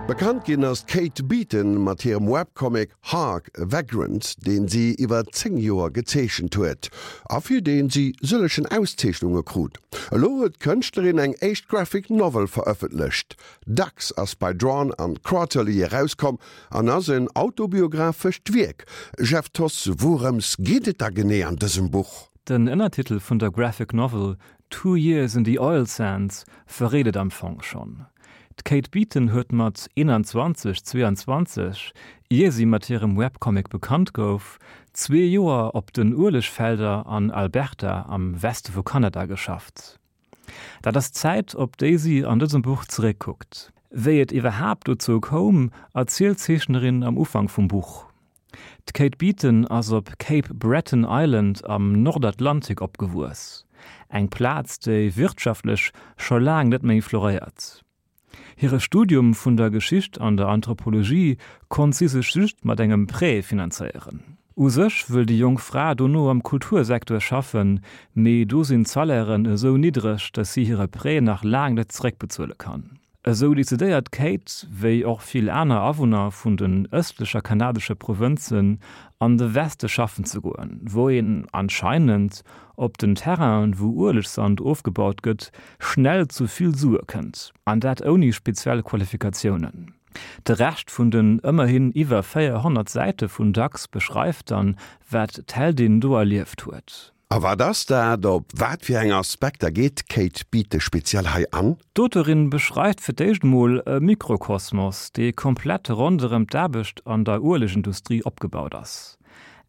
Bekannt ginn ass d'Kate Beaton mat hirem Webcomic Hark! A Vagrant, deen si iwwer 10 Joer gezeechent huet a fir deen si sëllegen Auszeechnunge krut. Elo huet d'Kënschtlerin eng éischt Graphic Novel verëffentlecht. Ducks ass bei Drawn an Quarterly erauskomm an ass en autobiographescht Wierk. Jeff Thoss, wourëms geet et da genee an dësem Buch? Den Ënnertitel vun der Graphic Novel Two Years in the Oil Sands verréit et am Fong schonn. D'Kate Beaton huet mat 21, 22, ier si mat hirem Webcomic bekannt gouf, zwee Joer op den Uelegfelder an Alberta am Weste vu Kanada geschafft. Dat ass d'Zäit, op déi si an dësem Buch zeréckkuckt. Wéi et iwwerhaapt dozou koum, erzielt d'Zeechnerin am Ufank vum Buch. D'Kate Beaton ass op Cape Breton Island am Nordatlantik opgewuess, eng Plaz, déi wirtschaftlech scho laang net méi floréiert. Hire Studium vun der Geschicht an der Anthropologie konnt si sech just mat engem Prêt finanzéieren. U sech wëll déi jonk Fra dono am Kultursecteur schaffen, mee do sinn d'Salairen esou niddreg, datt si hire Prêt nach laang net zeréckbezuele kann. Esou decidéiert d'Kate, wéi och vill aner Awunner vun den ëstlecher kanadesche Provënzen, an de Weste schaffen ze goen, wou een anscheinend op den Terrainen, wou Uelegsand ofgebaut gëtt, schnell zu vill Sue kënnt, an dat ouni speziell Qualifikatiounen. De Rescht vun den ëmmerhin iwwer 400 Säite vun Ducks beschreift dann, wat d'Heldin do erlieft huet. A wat ass dat? Op wat fir eng Aspekter geet d'Kate Beatty speziell hei an? D'Auteurin beschreift fir d'éischt emol e Mikrokosmos, dee komplett ronderëm d'Aarbecht an der Uelegindustrie opgebaut ass.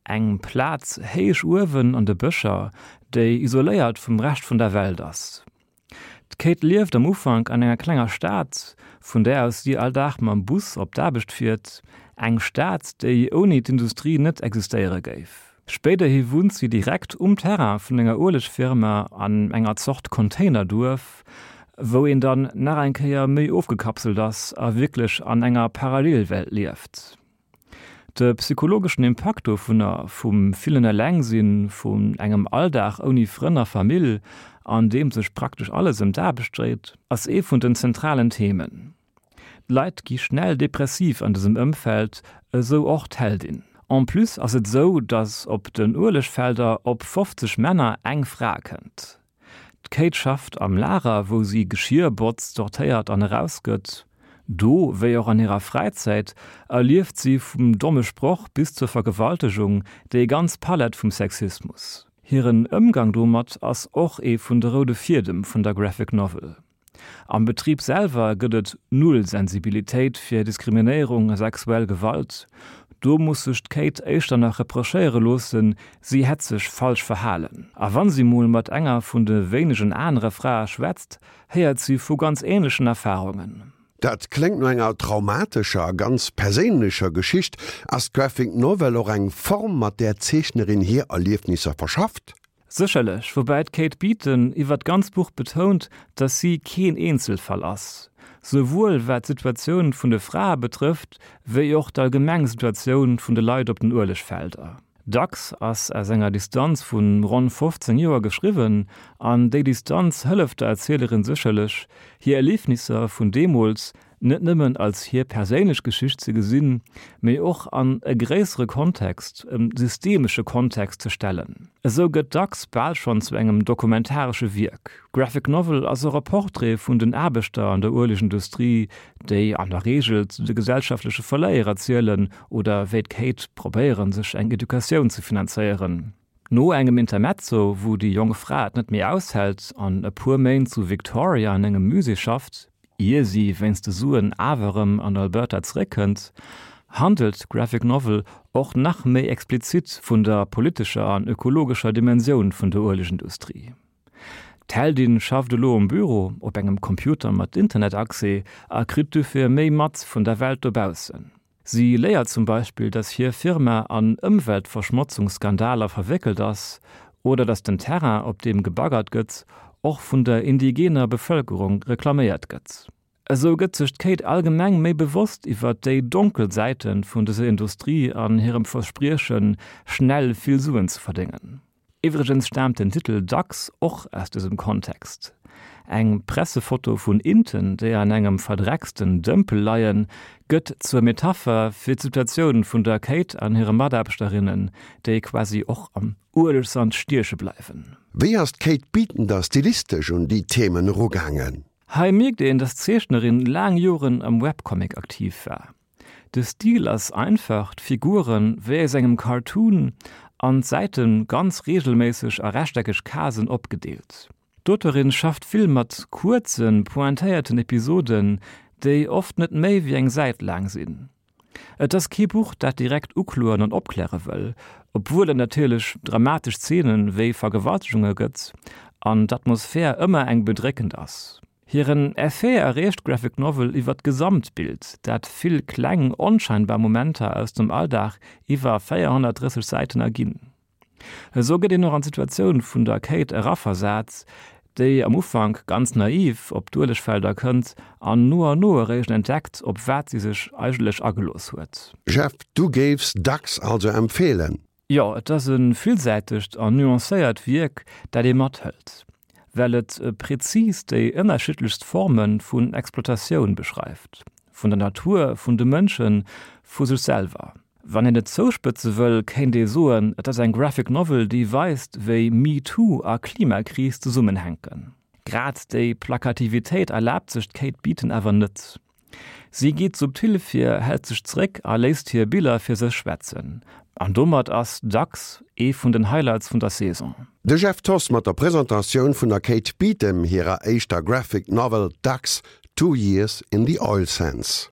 Eng Plaz héich uewen an de Bëscher, déi isoléiert vum Rescht vun der Welt ass. D'Kate lieft am Ufank an enger klenger Stad, vun där aus si all Dag mam Bus op d'Aarbecht fiert, eng Stad, déi ouni d'Industrie net existéiere géif. Spéiderhi wunnt si direkt um Terrain vun enger Uelegfirma an enger Zort Containerduerf, wou een dann nach eng Kéier méi ofgekapselt ass a wierklech an enger Parallelwelt lieft. De psychologeschen Impakt dovunner, vum villen Elengsinn, vun engem Alldag ouni Frënn a Famill, an deem sech praktesch alles ëm d'Aarbecht dréit, ass ee vun den zentralen Themen. D'Leit gi schnell depressiv an dësem Ëmfeld, esou och d'Heldin. En plus ass et esou, datt op den Uelegfelder op 50 Männer eng Fra kënnt. D'Kate schafft am Lager, wou si Geschier botzt, sortéiert an erausgëtt. Do, wéi och an hirer Fräizäit, erlieft si vum domme Sproch bis zur Vergewaltegung déi ganz Palett vum Sexismus. Hiren Ëmgang domat ass och ee vun de roude Fiedem vun der Graphic Novel. Am Betrib selwer gëtt et null Sensibilitéit fir Diskriminéierung a sexuell Gewalt. Do muss sech d'Kate éischter nach reprochéiere loossen, si hätt sech falsch verhalen. A wann si mol mat enger vun de wéinegen anere Frae schwätzt, héiert si vu ganz änlechen Erfarungen. Dat kléngt no enger traumatescher a ganz perséinlecher Geschicht. Ass d'Graphic Novel och eng Form, mat där d'Zeechnerin hir Erliefnisser verschafft? Sécherlech, woubäi d'Kate Beaton iwwer d'ganz Buch betount, datt si keen Eenzelfall ass, souwuel wat d'Situatioun vun de Frae betrëfft, wéi och d'allgemeng Situatioun vun de Leit op den Uelegfelder. Dacks ass aus enger Distanz vu ronn 15 Joer geschriwwen, an déi Distanz hëlleft der Erzielerin sécherlech, hir Erliefnisser vun deemools net nëmmen als hir perséinlech Geschicht ze gesinn, mee och an e gréissere Kontext, e systemesche Kontext ze stellen. Esou gëtt dacks bal schonn zu engem dokumentaresche Wierk. D'Graphic Novel ass och e Portrait vun den Aarbechter an der Uelegindustrie, déi an der Reegel zu de gesellschaftleche Verléierer zielen oder wéi d'Kate probéieren, sech eng Educatioun ze finanzéieren. No engem Intermezzo, wou déi jonk Fra et net méi aushält an e puer Méint zu Victoria an engem Musée schafft, ier si wéinst de Suen awer erëm an Alberta zeréckkënnt, handelt d'Graphic Novel och nach méi explizit vun der politescher an ökologescher Dimensioun vun der Uelegindustrie. D'Heldin schafft elo um Büro, op engem Computer mat Internetaccès a kritt dofir méi mat vun der Welt dobaussen. Si léiert zum Beispill, dass hir Firma an Ëmweltverschmotzungsskandaler verwéckelt ass oder dass den Terrain, op deem gebaggert gëtt, och vun der indigener Bevëlkerung reklaméiert gëtt. Esou gëtt sech d'Kate allgemeng méi bewosst iwwer déi donkel Säite vun dëser Industrie an hirem Verspriechen, schnell vill Suen ze verdéngen. Iwwregens staamt den Titel dacks och aus dësem Kontext. Eng Pressefoto vun Inten, déi an engem verdrecksten Dëmpel leien, gëtt zur Metapher fir d'Situatioun vun der Kate an hire Mataarbechterinnen, déi quasi och am Uelegsand stieche bleiwen. Wéi ass d'Kate Beaton da stilistesch un déi Themen erugaangen? Hei mierkt een, dass d'Zeechnerin laang Joren am Webcomic aktiv war. De Stil ass einfach, d'Figuren wéi aus engem Cartoon an d'Säite ganz reegelméisseg a rechteckeg Casen opgedeelt. D'Auteurin schafft vill mat kuerzen, pointéierten Episoden, déi oft net méi wéi eng Säit laang sinn. Et ass kee Buch, dat direkt ukloen an opkläre wëll, obwuel et natierlech dramatesch Zeenen wéi Vergewaltegunge gëtt an d'Atmosphär ëmmer eng bedréckend ass. Hiren Effet erreecht d'Graphic Novel iwwer d'Gesamtbild, dat vill kleng, onscheinbar Momenter aus dem Alldag iwwer 430 Säiten erginn. Esou gëtt een och an d'Situatioun vun der Kate eraversat, déi am Ufank ganz naiv op d'Uelegfelder kënnt an no an no eréischt entdeckt, op wat si sech eigentlech agelooss huet. Jeff, du géifs Ducks also empfeelen? Jo, et ass e villsäitegt an nuancéiert Wierk, dat ee mathëlt, well et prezis déi ënnerschiddlechst Forme vun Exploitatioun beschreift, vun der Natur, vun de Mënschen, vu sech selwer. Wann een et zouspëtze wëll, kéint ee soen, et ass eng Graphic Novel, déi weist, wéi MeToo a Klimakris zesummenhänken. Grad déi Plakativitéit erlaabt sech d'Kate Beaton awer net. Si geet subtil vir, hält sech zeréck a léisst hir Biller fir sech schwätzen. An domat ass Ducks ee vun den Highlights vun der Saison. De Jeff Thoss mat der Presentatioun vun der Kate Beaton hirer éischter Graphic Novel Ducks, Two Years in the Oil Sands.